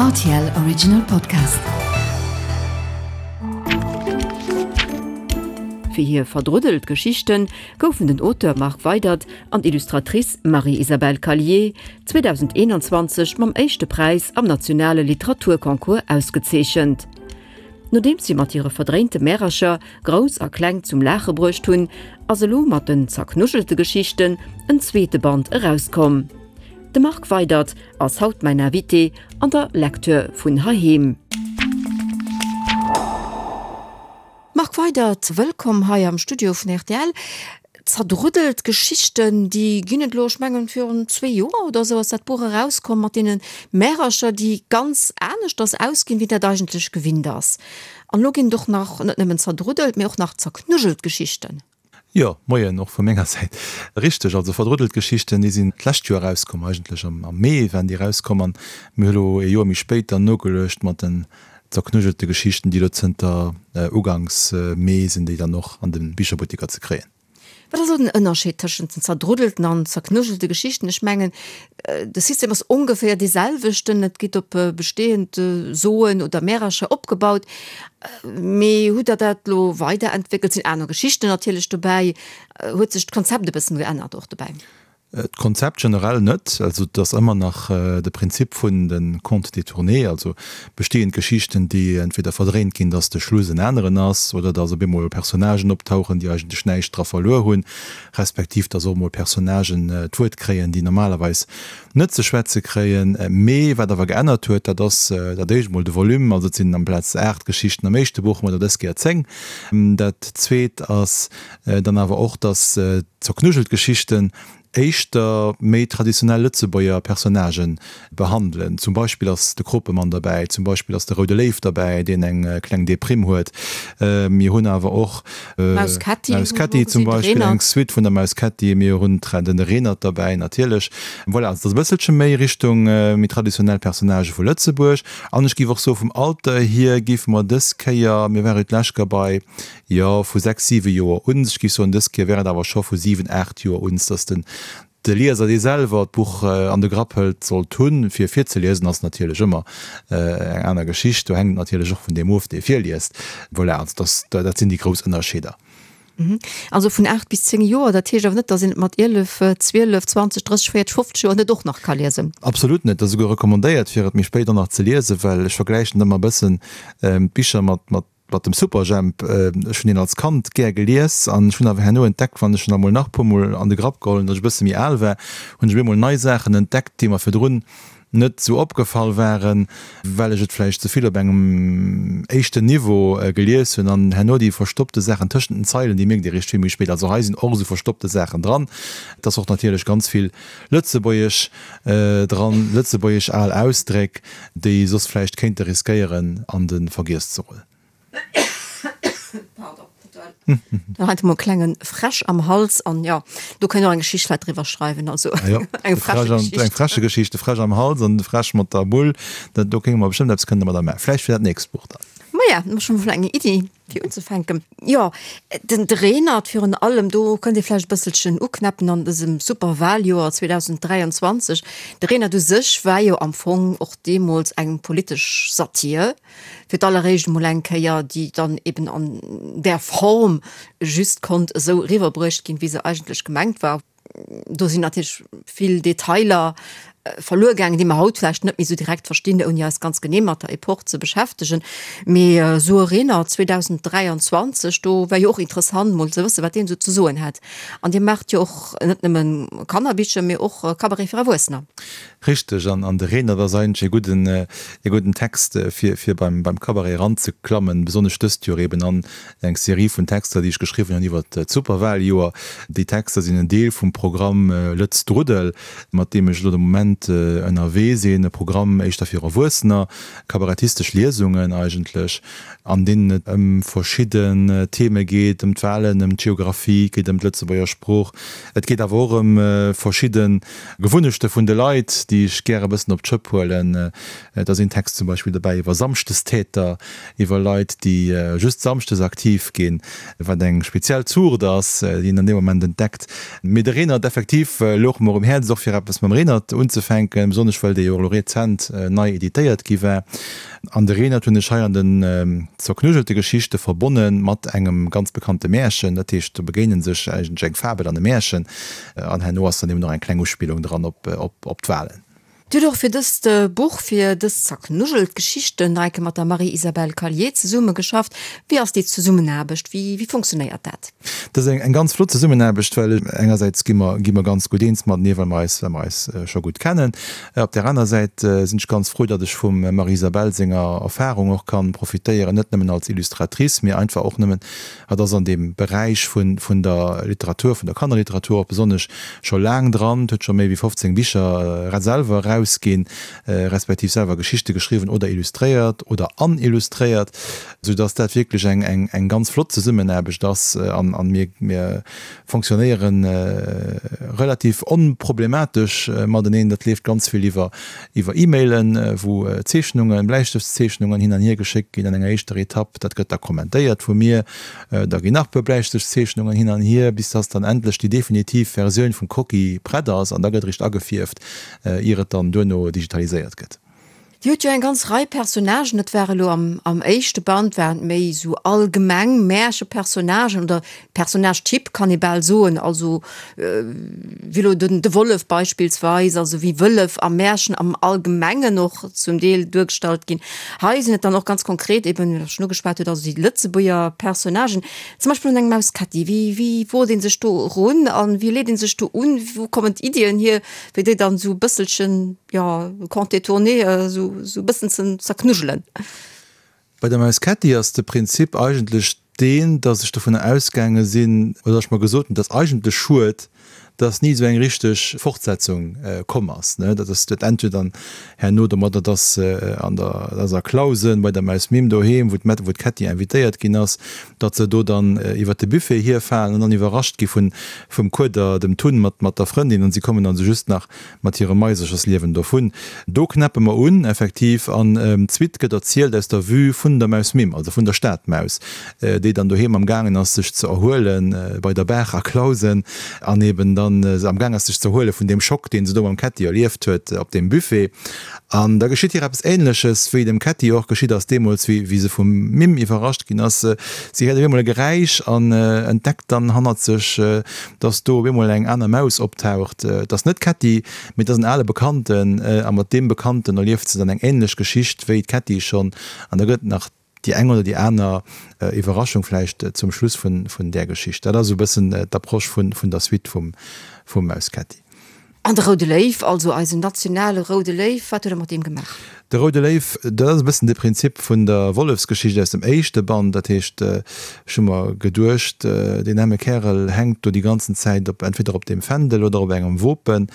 Rtl Original Podcast. Fir hir verdruddelt Geschichte goufen den Auteur Marc Weydert an d'Illustratrice Marie-Isabelle Callier 2021 mam éischte Präis am nationale Literaturconcours ausgezeechent. Nodeems si mat hire verdréinte Märercher Grouss a Kleng zum Laache bruecht hunn, ass elo mat den zerknuschelte Geschichten en zweete Band erauskomm. De Marc Weydert ass haut mäin Invité an der Lecture vun heiheem. Marc Weydert, wëllkomm hei am Studio vun rtl. Zerdruddelt Geschichten, déi ginn et elo, ech mengen virun zwee Joer oder esou ass dat Buch erauskomm mat deene Märercher, déi ganz aneschters ausginn, wéi dat eigentlech gewinnt ass. An elo ginn et och nach net nëmmen zerdruddelt, mee och nach zerknuddelt Geschichten. Jo, Moien och vu menger Säit. Richteg, also verdruddelt Geschichten, déi sinn d'lescht Joer erauskomm, eigentlech am Mee waren déi erauskomm an mir hu lo ee Joer méi spéit dann nogeluecht mat den zerknujjelte Geschichten, déi elo zënter uganks Mee sinn déi dann och an de Bicherbutteker ze kréien. Wat ass elo den Ënnerscheed tëschent den zerdruddelten an zerknujjelte Geschichten? Ech mengen, de System ass ongeféier dee selwechten, et geet op bestehend Soen oder Märercher opgebaut. Mee hutt Der dat elo weiderentwéckelt? Sinn aner Geschichten natierlech dobäi? Huet sech d'Konzept e bëssen geännert och dobäi? D'Konzept generell net. Also et ass ëmmer nach de Prinzip vun de Contes détournés, also bestehend Geschichten, déi entweder verdréint ginn, datt de Schluss en aneren ass, oder datt op eemol Personnagen optauchen, déi eigentlech näischt dra verluer hunn, respektiv datt och emol Personnagen d'Wuert kréien, déi normalerweis net ze schwätze kréien. Mee wat awer geännert huet, dat ass dat éischt emol de Volume, also et sinn amplaz 8 Geschichten am éischte Buch, hu mer der dës Kéier 10. Dat zweet ass dann awer och, datt Zerknujelt Geschichten éischter méi traditionell Lëtzebuerger Personnagë behandelen. Zum Beispill ass de Kropemann derbäi, zum Beispill ass de Roude Léiw derbäi, deen eng kleng Deprimm huet. Mir hunn awer och d'Maus Kätti, Maus Kätti zum Beispill, eng Suite vun der Maus Kätti. Mir hunn den Renert derbäi natierlech. Voilà, also et ass e bësselche méi Richtung méi traditionell Personnagë vu Lëtzebuerg. An ech géif och soe vum Alter hier géife mer dës Kéier, mir ware jo d'lescht Kéier bei Jo, vu 6, 7 Joer un. Ech géif soen, dës Kéier wär et awer scho vu 7, 8 Joer un, dass den de Lieser, dee selwer d'Buch an de Grapp hëlt, sollt hunn. Fir virzeliesen ass natierlech ëmmer eng aner Geschicht. Do hänkt et natierlech och vun deem of, dee virliest. Voilà, also dass, dat sinn déi grouss Ënnerscheeder. Also vun 8 bis 10 Joer, dat heescht awer net, dass een et mat 11, 12, 20, 30, 40, 50 Joer net och nach ka liesen? Absolut net. Et ass esouguer recommandéiert, fir et méi spéit och nach ze liesen, well ech vergläichen ëmmer e bëssen d'Bicher mat, mat Mat dem Superjhemp, ech hunn deen als Kand gär gelies an ech hunn awer herno entdeckt, wann ech en emol nach puer mol an de Grapp geholl hunn, datt ech e bësse méi al war, hunn ech op eemol nei Saachen entdeckt, déi mer virdrun net esou opgefall waren, well ech et vläicht ze vill op engem éischten Niveau gelies hunn an herno déi verstoppte Saachen tëschent den Zeilen, déi mierkt ee réischt vill méi spéit. Also hei sinn och esou verstoppte Saachen dran. Et ass och natierlech ganz vill Lëtzebuergesch dran, lëtzebuergesch al Ausdréck, déi soss vläicht kéinte riskéieren an de Vergiess ze rullen. Pardon, da hat emol klengen Fräsch am Hals an jo, do kënnt och eng Geschicht vläit driwwer schreiwen, also eng Fräschegeschicht. Eng Fräschegeschicht, de Fräsch am Hals an de Fräsch mat der Bull, dat do kéinge mer bestëmmt eppes kënne mat der maachen. Vläicht fir dat nächst Buch dann. Maja, hu mer schonn emol eng Iddi. Fir unzefänken, jo, den Renert virun allem, do kënnt ee vläicht e bësselchen uknäppen an dësem super Wahljoer 2023. De Renert u sech war jo am Fong och deemools eng politesch Satir, fir d'alleréischt emol eng Kéier, déi dann eben an där Form just konnt esou eriwwerbruecht ginn, wéi se eigentlech gemengt war. Do sinn natierlech vill Detailer verluer gaangen, déi mer haut vläicht net méi esou direkt verstinn, ouni eis ganz genee mat der Epoch ze beschäftegen. Mee esou e Renert 2023, do wär jo och interessant mol ze wëssen, wat deen esou ze soen hätt. An Dir maacht jo och net nëmme Kannerbicher, mee och Cabaret fir Erwuessener. Richteg, an de Renert ass eigentlech e gudden, e gudden Text, fir, fir beim, beim Cabaret eranzeklammen, besonnesch dëst Joer eben an eng Serie vun Texter, déi ech geschriwwen hunn iwwert d'Superwahljoer. Déi Texter sinn en Deel vum Programm Lëtz Druddel, mat deem ech elo de Moment ënnerwee sinn, e Programm éischter fir Erwuessener, kabarettistesch Liesungen eigentlech, an deenen et ëm verschidden Theme geet, ëm d'Wahlen, ëm d'Geographie, et geet ëm d'Lëtzebuerger Sprooch, et geet awer och ëm verschidde Gewunnechte vun de Leit, déi ech gär e bëssen op d'Schëpp huelen. Et ass een Text zum Beispill dobäi iwwer Samschdestäter, iwwer Leit, déi just samschdes aktiv ginn, wat eng speziell Zuucht ass, déi een an deem Moment entdeckt. Mee de Renert, effektiv, louch mer um Häerz, och fir eppes mam Renert unzefänken. unzefänken, besonnesch well dee jo och elo rezent nei editéiert gi war. An de Renert hunn ech hei an den zerknujjelte Geschichte verbonne mat engem ganz bekannte Märchen. Dat heescht, do begéine sech eigentlech eng Fabel an e Märchen. An herno ass dann eben och eng kleng Uspillung dran op d'Wahlen. Dir hutt och fir dëst Buch, fir dës zerknujjelt Geschichten, nach eng Kéier mat der Marie-Isabelle Callier zesummegeschafft. Wéi ass déi Zesummenaarbecht? Wéi, wéi funktionéiert dat? Dat ass eng ganz flott Zesummenaarbecht, well engersäits gi mer, gi mer ganz gutt eens matenee, well mer eis, well mer eis scho gutt kennen. Op där aner Säit sinn ech ganz frou, datt ech vum Marie-Isabelle senger Erfahrung och kann profitéieren, net nëmmen als Illustratrice, mee einfach och nëmmen Hatt ass an deem Beräich vun vun der Literatur, vun der Kannerliteratur och besonnesch scho laang dran, huet scho méi wéi 15 Bicher selwer erausginn, respektiv selwer Geschichte geschriwwen oder illustréiert oder an illustréiert, sou dass dat wierklech eng eng eng ganz flott Zesummenaarbecht ass an an mir mir fonctionnéiere relativ onproblematesch mateneen. Dat leeft ganz vill iwwer iwwer E-Mailen, wou Zeechnungen, Bläistëftszeechnungen hin an hier geschéckt ginn an enger éischter Etapp. Dat gëtt da kommentéiert vu mir. Da ginn nach e puer Bläistëftszeechnungen hin an hier, bis dass dann endlech déi definitiv Versioun vum Croquis prett ass an da gëtt eréischt agefierft, ier et dann duerno digitaliséiert gëtt. Dir hutt jo eng ganz Rei Personnagen, dat war elo am am éischte Band waren et méi esou allgemeng Märchepersonnagen oder Personnage-Typ kann ee bal soen, also wéi elo den de Wollef beispillsweis, also wéi Wëllef a Märchen am Allgemengen och zum Deel duergestallt ginn. Hei sinn et dann och ganz konkret eben, wéi Der schonn ugeschwat hutt, also déi Lëtzebuerger Personnagen, zum Beispill un eng Maus Ketti. Wéi wéi wot ee sech do erun an wéi leet ee sech do un? Wou kommen d'Iddien hier, fir déi dann esou e bësselchen, jo, Conte détourné esou e bëssen ze zerknujelen. Bei der Maus Ketti ass de Prinzip eigentlech deen, datt ech dovunner ausgaange sinn, oder datt ech mer gesot hunn, et ass eigentlech schued, datt ni esou eng richteg Fortsetzung komm ass. Dat ass dat ennt jo dann herno domadder, datt an der, datt a Clausen bei der Maus Mim doheem, wou d'Mett, wou d'Ketti invitéiert ginn ass, datt se do dann iwwert de Buffet hierfalen an dann iwwerrascht gi vun, vum Kueder, dem Tun mat, mat der Frëndin, an si kommen dann esou just nach mat hirem Maiserchersliewen dovun. Do knäppe mer un, effektiv, an d'Suite gëtt erzielt aus der Vue vun der Maus Mim, also vun der Stadmaus, déi dann doheem am gaangen ass sech ze erhuelen, bei der Baach a Clausen, an eben dann am gaang ass sech ze erhuele vun deem Schock, deen se do mam Ketti erlieft huet op deem Buffet. An da geschitt hir eppes Ähnleches, wéi dem Ketti och geschitt ass deemools, wéi se vum Mim iwwerrascht ginn ass. Si héiert op eemol e Geräisch an entdeckt dann hannert sech, dass do op eemol eng aner Maus optaucht. Et ass net d'Ketti, mee et ass en ale Bekannten. A mat deem Bekannten erlieft se dann eng änlech Geschicht wéi d'Ketti schonn. An da gëtt et nach déi eng oder déi aner Iwwerraschung vläicht zum Schluss vun där Geschicht. Dat ass esou e bëssen d'Approche vun der Suite vum Maus Ketti. An de Roude Léiw, also eisen nationale Roude Léiw, wat huet Der mat deem gemaach? De Roude Léiw, dat ass e bëssen de Prinzip vun der Wollefsgeschicht aus dem éischte Band. Dat heescht, ech hu mer geduecht, deen aarme Kärel hänkt do déi ganzen Zäit op, entweder op deem Fändel oder op engem Wopen.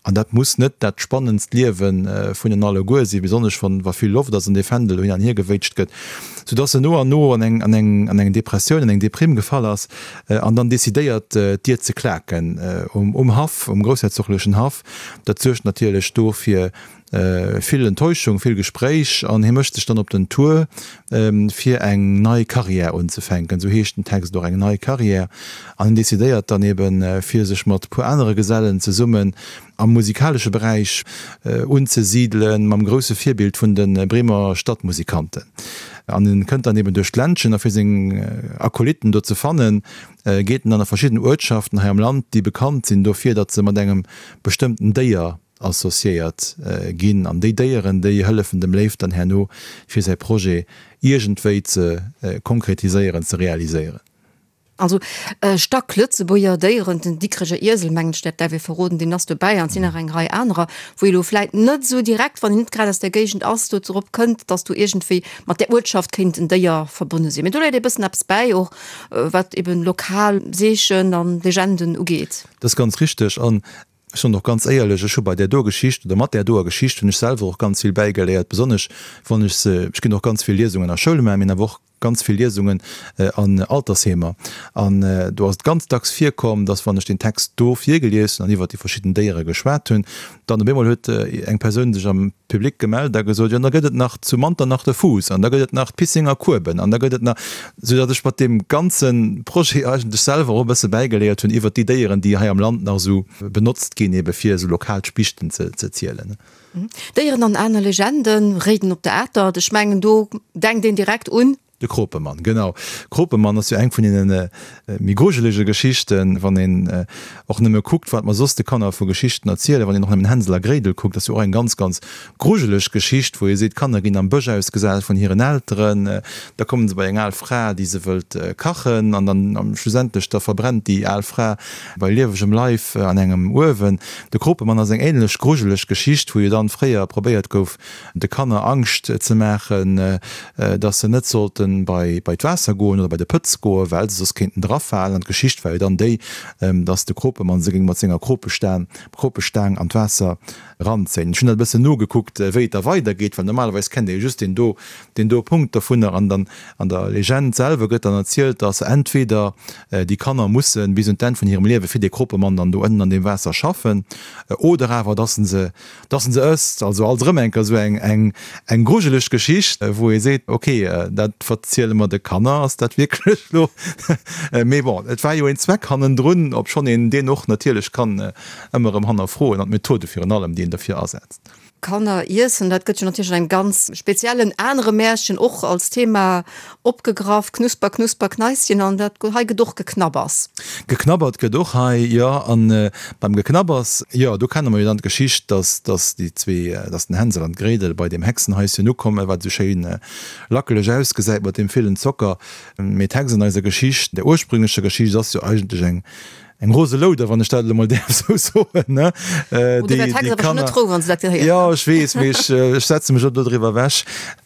An dat muss net dat spannendst Liewe vun en alleguer sinn, besonnesch wann, wa vill Loft ass an dee Fändel do hin an hier gewéitscht gëtt, soudass en no an no an eng, an eng, an eng Depressioun, an eng Deprime gefall ass. An dann decidéiert d'Dier ze klaken um Haff, um groussherzoglechen Haff. Dat suergt natierlech do fir vill Enttäuschung, vill Gespréich an hie mécht sech dann op den Tour fir eng nei Carrière unzefänken, esou heescht den Text och, eng nei Carrière. An hien decidéiert dann eben fir sech mat puer anere Gesellen zesummen am musikalesche Beräich unzesidelen, mam grousse Virbild vun de Bremer Stadtmusikanten. An en kënnt dann eben duerch d'Ländchen a fir seng Akolytten do ze fannen, geet en dann a verschidden Uertschaften hei am Land, déi bekannt sinn dofir, datt se mat engem bestëmmten Déier associéiert ginn. An déi Déieren, déi hëllefen dem Léiw dann herno, fir säi Projet iergendwéi ze konkretiséieren, ze realiséieren. Also Stack-Lëtzebuerger Déieren, den Dikreger Iesel, mengen ech, dat däerf ee verroden, deen ass dobäi an et sinn nach eng Rei anerer, wou ee lo vläit net esou direkt, wann een net grad aus där Géigend ass, do drop kënnt, datt do iergendwéi mat där Uertschaft kéint en Déier verbonne sinn. Mee do léit ee bëssen eppes bäi, och wat eben lokal Seechen an Legenden ugeet. Dat ass ganz richteg an ech soen och ganz éierlech, ech hu bei där doer Geschicht oder mat där doer Geschicht hunn ech selwer och ganz vill bäigeléiert, besonnesch wann ech se, ech ginn och ganz vill Liesungen a Schoule maachen, mee awer och. Ganz vill Liesungen an Altersheemer an do ass et ganz dacks virkomm, dass wann ech deen Text do virgelies hunn an iwwert déi verschidden Déiere geschwat hunn, dann op eemol huet eng Persoun sech am Public gemellt a gesot, jo, da gëtt et nach zu Manternach de Fuuss an da gëtt et nach d'Pissinger Kueben an da gëtt et nach, soudatt ech mat deem ganze Projet eigentlech selwer och e bësse bäigeléiert hunn iwwert déi Déieren, déi hei am Land nach esou benotzt ginn, ebe fir esou lokal Spichten ze zielen. Déieren an aner Legenden, Réiden op der Atert, ech mengen do denkt een direkt un. De Kropemann, genau. Kropemann ass jo eng vun deene méi grujelege Geschichten, wann een och nëmme kuckt, wat mer soss de Kanner vu Geschichten erzielen. Wann een och nëmmen Hänsel a Gréidel kuckt, ass jo och eng ganz, ganz grujeleg Geschicht, wou ee seet, d'Kanner ginn am Bësch ausgesat vun hiren Elteren, da kommen se bei eng al Fra, déi se wëllt kachen an dann schlussendlech da verbrennt déi al Fra Bei liewegem Leif an engem Uewen. De Kropemann ass eng ähnlech grujeleg Geschicht, wou jo dann fréier probéiert gouf, de Kanner Angscht ze maachen, dass se net sollten bei bei d'Waasser goen oder bei de Pëtz goen, well se soss kéinten drafalen. An d'Geschicht war jo dann déi, dass de Kropemann se géing mat senger Kropestaang Kropestaang an d'Waasser ranzéien. Ech hunn dat e bëssen nogekuckt, wéi et da weidergeet, well normalerweis kennt ee jo just deen do, deen do Punkt dovunner. An dann an der Legend selwer gëtt dann erzielt, dass entweder déi Kanner musse bis un d'Enn vun hirem Liewe fir dee Kropemann dann do ënnen an deem Waasser schaffen, oder awer dass en se, dass en se ësst. Also alt erëm eng Kéier esou eng, eng, eng grujeleg Geschicht, wou ee seet, ok, dat verziele mer de Kanner, ass dat wierklech elo? Mee bon, et war jo een Zweck hannendrun, obschonn een deen och natierlech kann ëmmer erëm hannerfroen an d'Methode virun allem, déi een derfir asetzt. Kanner iessen, dat gëtt jo natierlech an engem ganz speziellen anere Märchen och als Thema opgegraff, Knusper, Knusper, Kneischen, an dat hei gëtt och geknabbers. Geknabbert gëtt och hei, jo. An beim Geknabbers, jo, do kenne mer jo dann d'Geschicht, dass, dass déi zwee, dass den Hänsel an d'Gréidel bei deem Hexenhaischen ukommen, wat esou schéin lackeleg ausgesäit mat deem villen Zocker. Mee d'Hex an eiser Geschicht, der ursprünglecher Geschicht, ass jo eigentlech eng, Eng rose Louder, wann ech dat elo mol däerf esou soen, ne? Oh, do wär d'Hex awer schonn net frou, wann se dat gehéiert Jo, ech weess, mee ech, ech setze mech och do driwwer ewech.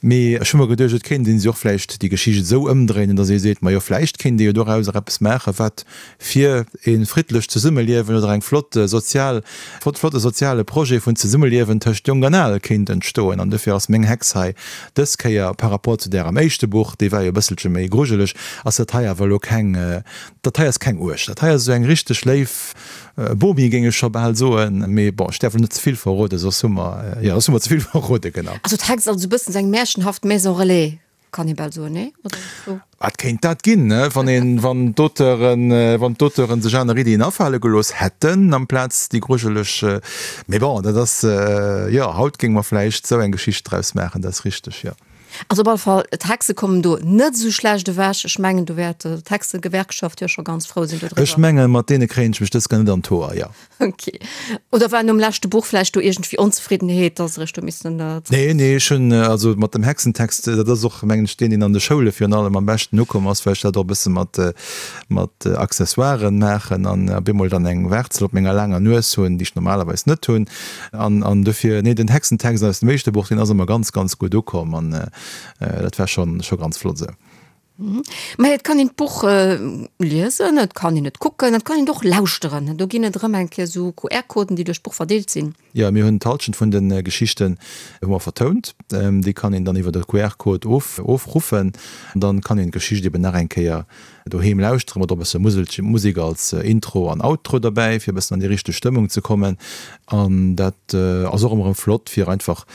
Mee ech hu mer geduecht, et kéint een se och vläicht déi Geschicht esou ëmdréinen, datt ee seet, majo, vläicht kéint ee jo dorauser eppes maachen, wat fir e friddlecht Zesummeliewen oder eng flott sozial, flotte soziale Projet vun Zesummeliewen tëscht Jonk an Al kéint entstoen. An dofir ass meng Hex hei dës Kéier par rapport zu där am éischte Buch, déi war jo e bësselche méi grujeleg, ass dat hei awer elo keng, Dat hei ass keng uerg, dat hei ass esou eng richteg léif Bomi, géing ech scho bal soen. Mee bon, ech däerf elo net ze vill verroden, soss hu mer, jo, soss hu mer ze vill verroden, genau. Also d'Hex ass esou e bëssen esou eng märchenhaft Maison Relais, kann ee bal soen, nee? Oder esou? Et kéint dat ginn, ne, wann een, wann d'Auteuren, wann d'Auteuren sech aner Iddien afale gelooss hätten, amplaz déi grujeleg. Mee bon, dat ass, jo, haut géinge mer vläicht esou eng Geschicht draus maachen, dat ass richteg, jo. Also op alle Fall, d'Hexe kommen do net esou schlecht ewech. Ech mengen, do wäert d'Hexegewerkschaft jo scho ganz frou sinn dodriwwer. Ech mengen, mat deene kréien ech mech dës Kéier net an d'Hoer, jo. Ok. Oder war nom leschte Buch vläicht do iergendwéi Onzefriddenheet, dass se eréischt do missen zréck. Nee, nee, ech hunn also mat dem Hexentext, dat ass och, mengen ech, deen, deen an de Schoule virun allem am beschten ukomm ass, well ech dat och e bësse mat, mat Accessoiren maachen an op eemol dann eng Waarzel op menger laanger Nues hunn, déi ech normalerweis net hunn. An, an dofir, nee, den Hexentext aus dem éischte Buch, deen ass ëmmer ganz, ganz gutt ukomm an dat war schonn, scho ganz flott esou. Mä et kann een d'Buch liesen, et kann een et kucken, et kann een et och lauschteren. Do ginn et erëm eng Kéier esou QR-Coden, déi duerch d'Buch verdeelt sinn. Jo, mir hunn d'Halschent vun de Geschichten hu mer vertount. Déi kann een dann iwwer e QR-Code of, ofruffen. Dann kann een d'Geschicht eben nach eng Kéier Doheem lauschtere mat och e bësse Muselche, Musek als Intro an Outro derbäi, fir e bëssen an déi richteg Stëmmung ze kommen. An dat ass och ëmmer erëm flott, fir einfach,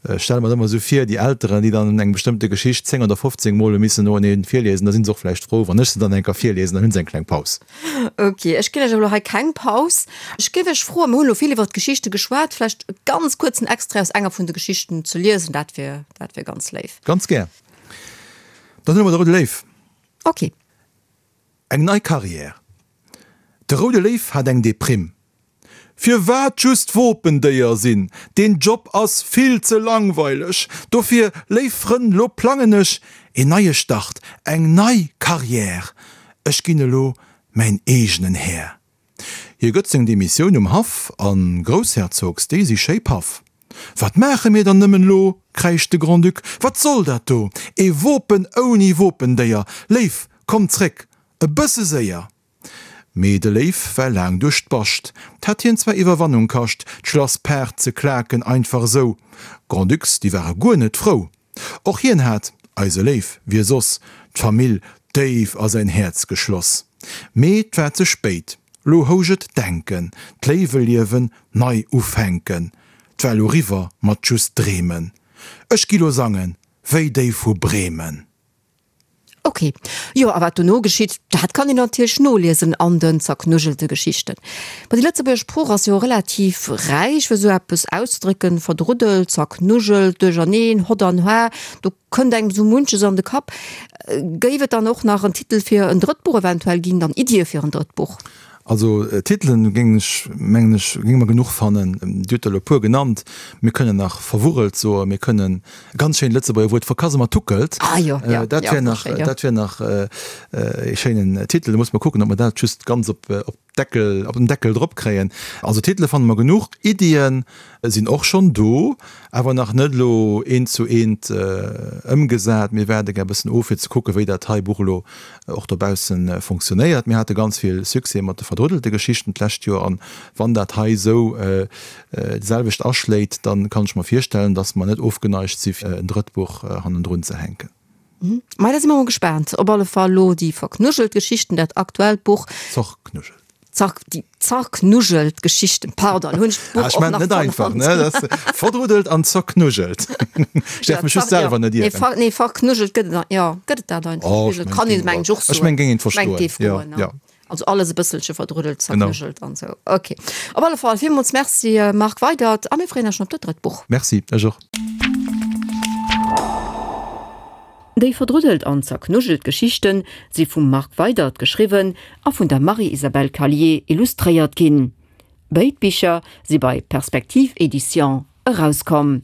ech stelle mer dat ëmmer esou vir, déi Elteren, déi dann eng bestëmmte Geschicht 10 oder 15 Mol hu missen noeneen virliesen, da si se och vläicht frou, wann ech se dann eng Kéier virliesen, dann hu se eng kleng Paus. Ok, ech ginn Iech elo hei keng Paus. Ech géif Iech froen, mir hunn elo vill iwwer d'Geschichte geschwat, vläicht e ganz kuerzen Extrait aus enger vun de Geschichten ze liesen, dat wier, dat wier ganz léif. Ganz gär. Dann huele mer de Roude Léiw. Ok. Eng nei Carrière. De Roude Léiw hat eng Deprimm. Firwat just Wopendéier sinn? Deen Job ass vill ze langweileg. Dofir, léif Frënn, lo plangen ech een neie Start, eng nei Carrière. Ech ginn elo mäin eegenen Här. Hie gëtt seng Demissioun um Haff an Groussherzogs, déi si schéi paff. Wat maache mir dann nëmmen lo? kräischt de Grand-Duc, wat soll dat do? Ee Wopen ouni Wopendéier! Léif, komm zréck, e bësse séier! Mee de Léif war laang duerch d'Bascht, 't hat hien zwar Iwwerwannung kascht, d'Schlass Paart ze klaken, einfach esou. Grand-Ducs, déi ware guer net frou. Och hien hat, eise Léif, wie soss? d'Famill déif a säin Häerz geschloss. Mee 't war ze spéit, lo housch et denken, d'Léiwe liewen, nei ufänken. 't war lo riwwer mat just dreemen. Ech gi lo sangen, wéi déi vu Bremen. Ok, jo, a wat dono geschitt, dat kann een natierlech noliesen an den zerknujjelte Geschichten. Ma déi Lëtzebuerger Sprooch ass jo relativ räich, fir esou eppes auszedrécken, verdruddelt, zerknujjelt, duercherneen, hott an har, do kënnt engem esou munches an de Kapp. Géif et dann och nach en Titel fir en drëtt Buch eventuell ginn, dann Iddie fir en drëtt Buch? Also Titelen géing ech, mengen ech, géinge mer genuch fannen. Dir hutt der elo e puer genannt. Mir kënnen nach verwurrelt soen, mir kënnen e ganz schéint Lëtzebuerger Wuert verkasematuckelt. Ah jo, jo, Dat wär nach, dat wär nach e schéinen Titel. Da muss mer kucken, ob mer dat just ganz op d'Deckel, op den Deckel drop kréien. Also Titele fanne mer genuch. Iddien sinn och schonn do, awer nach net elo eent zu eent ëmgesat. Mir waarde gär e bëssen of, fir ze kucken, wéi dat hei Buch elo och dobausse fonctionnéiert. Mir hate ganz vill Succès mat de verdruddelte Geschichten d'lescht Joer an wann dat hei esou d'selwecht aschléit, da kann ech mer virstellen, datt mer net ofgeneigt si fir en drëtt Buch hannendrun ze hänken. Mei, da si mer mol gespaant. Op alle Fall elo déi verknujelt Geschichten, dat aktuellt Buch. Zorknujelt. Zar, déi zerknujelt Geschichten, pardon, hunn ech d'Buch och nach net einfach, ne? Das verdruddelt an zerknujelt. Ech däerf mech just selwer net ieren. Nee, nee, verknujelt gëtt et, jo, gëtt et dat einfach? Oh, ech kann een, meng ech och soen. Ech meng, géing een verstoen. Meng, géif goen, ja. Also alles e bësselche verdruddelt, zerknujelt an esou. Ok. Op alle Fall, villmools Merci, Marc Weydert, a mir freeën eis schon op dat drëtt Buch. Merci, ech och. Déi verdruddelt an zerknujelt Geschichten si vum Marc Weydert geschriwwen a vun der Marie-Isabelle Callier illustréiert ginn. Béid Bicher si bei Perspektiv Éditions erauskomm.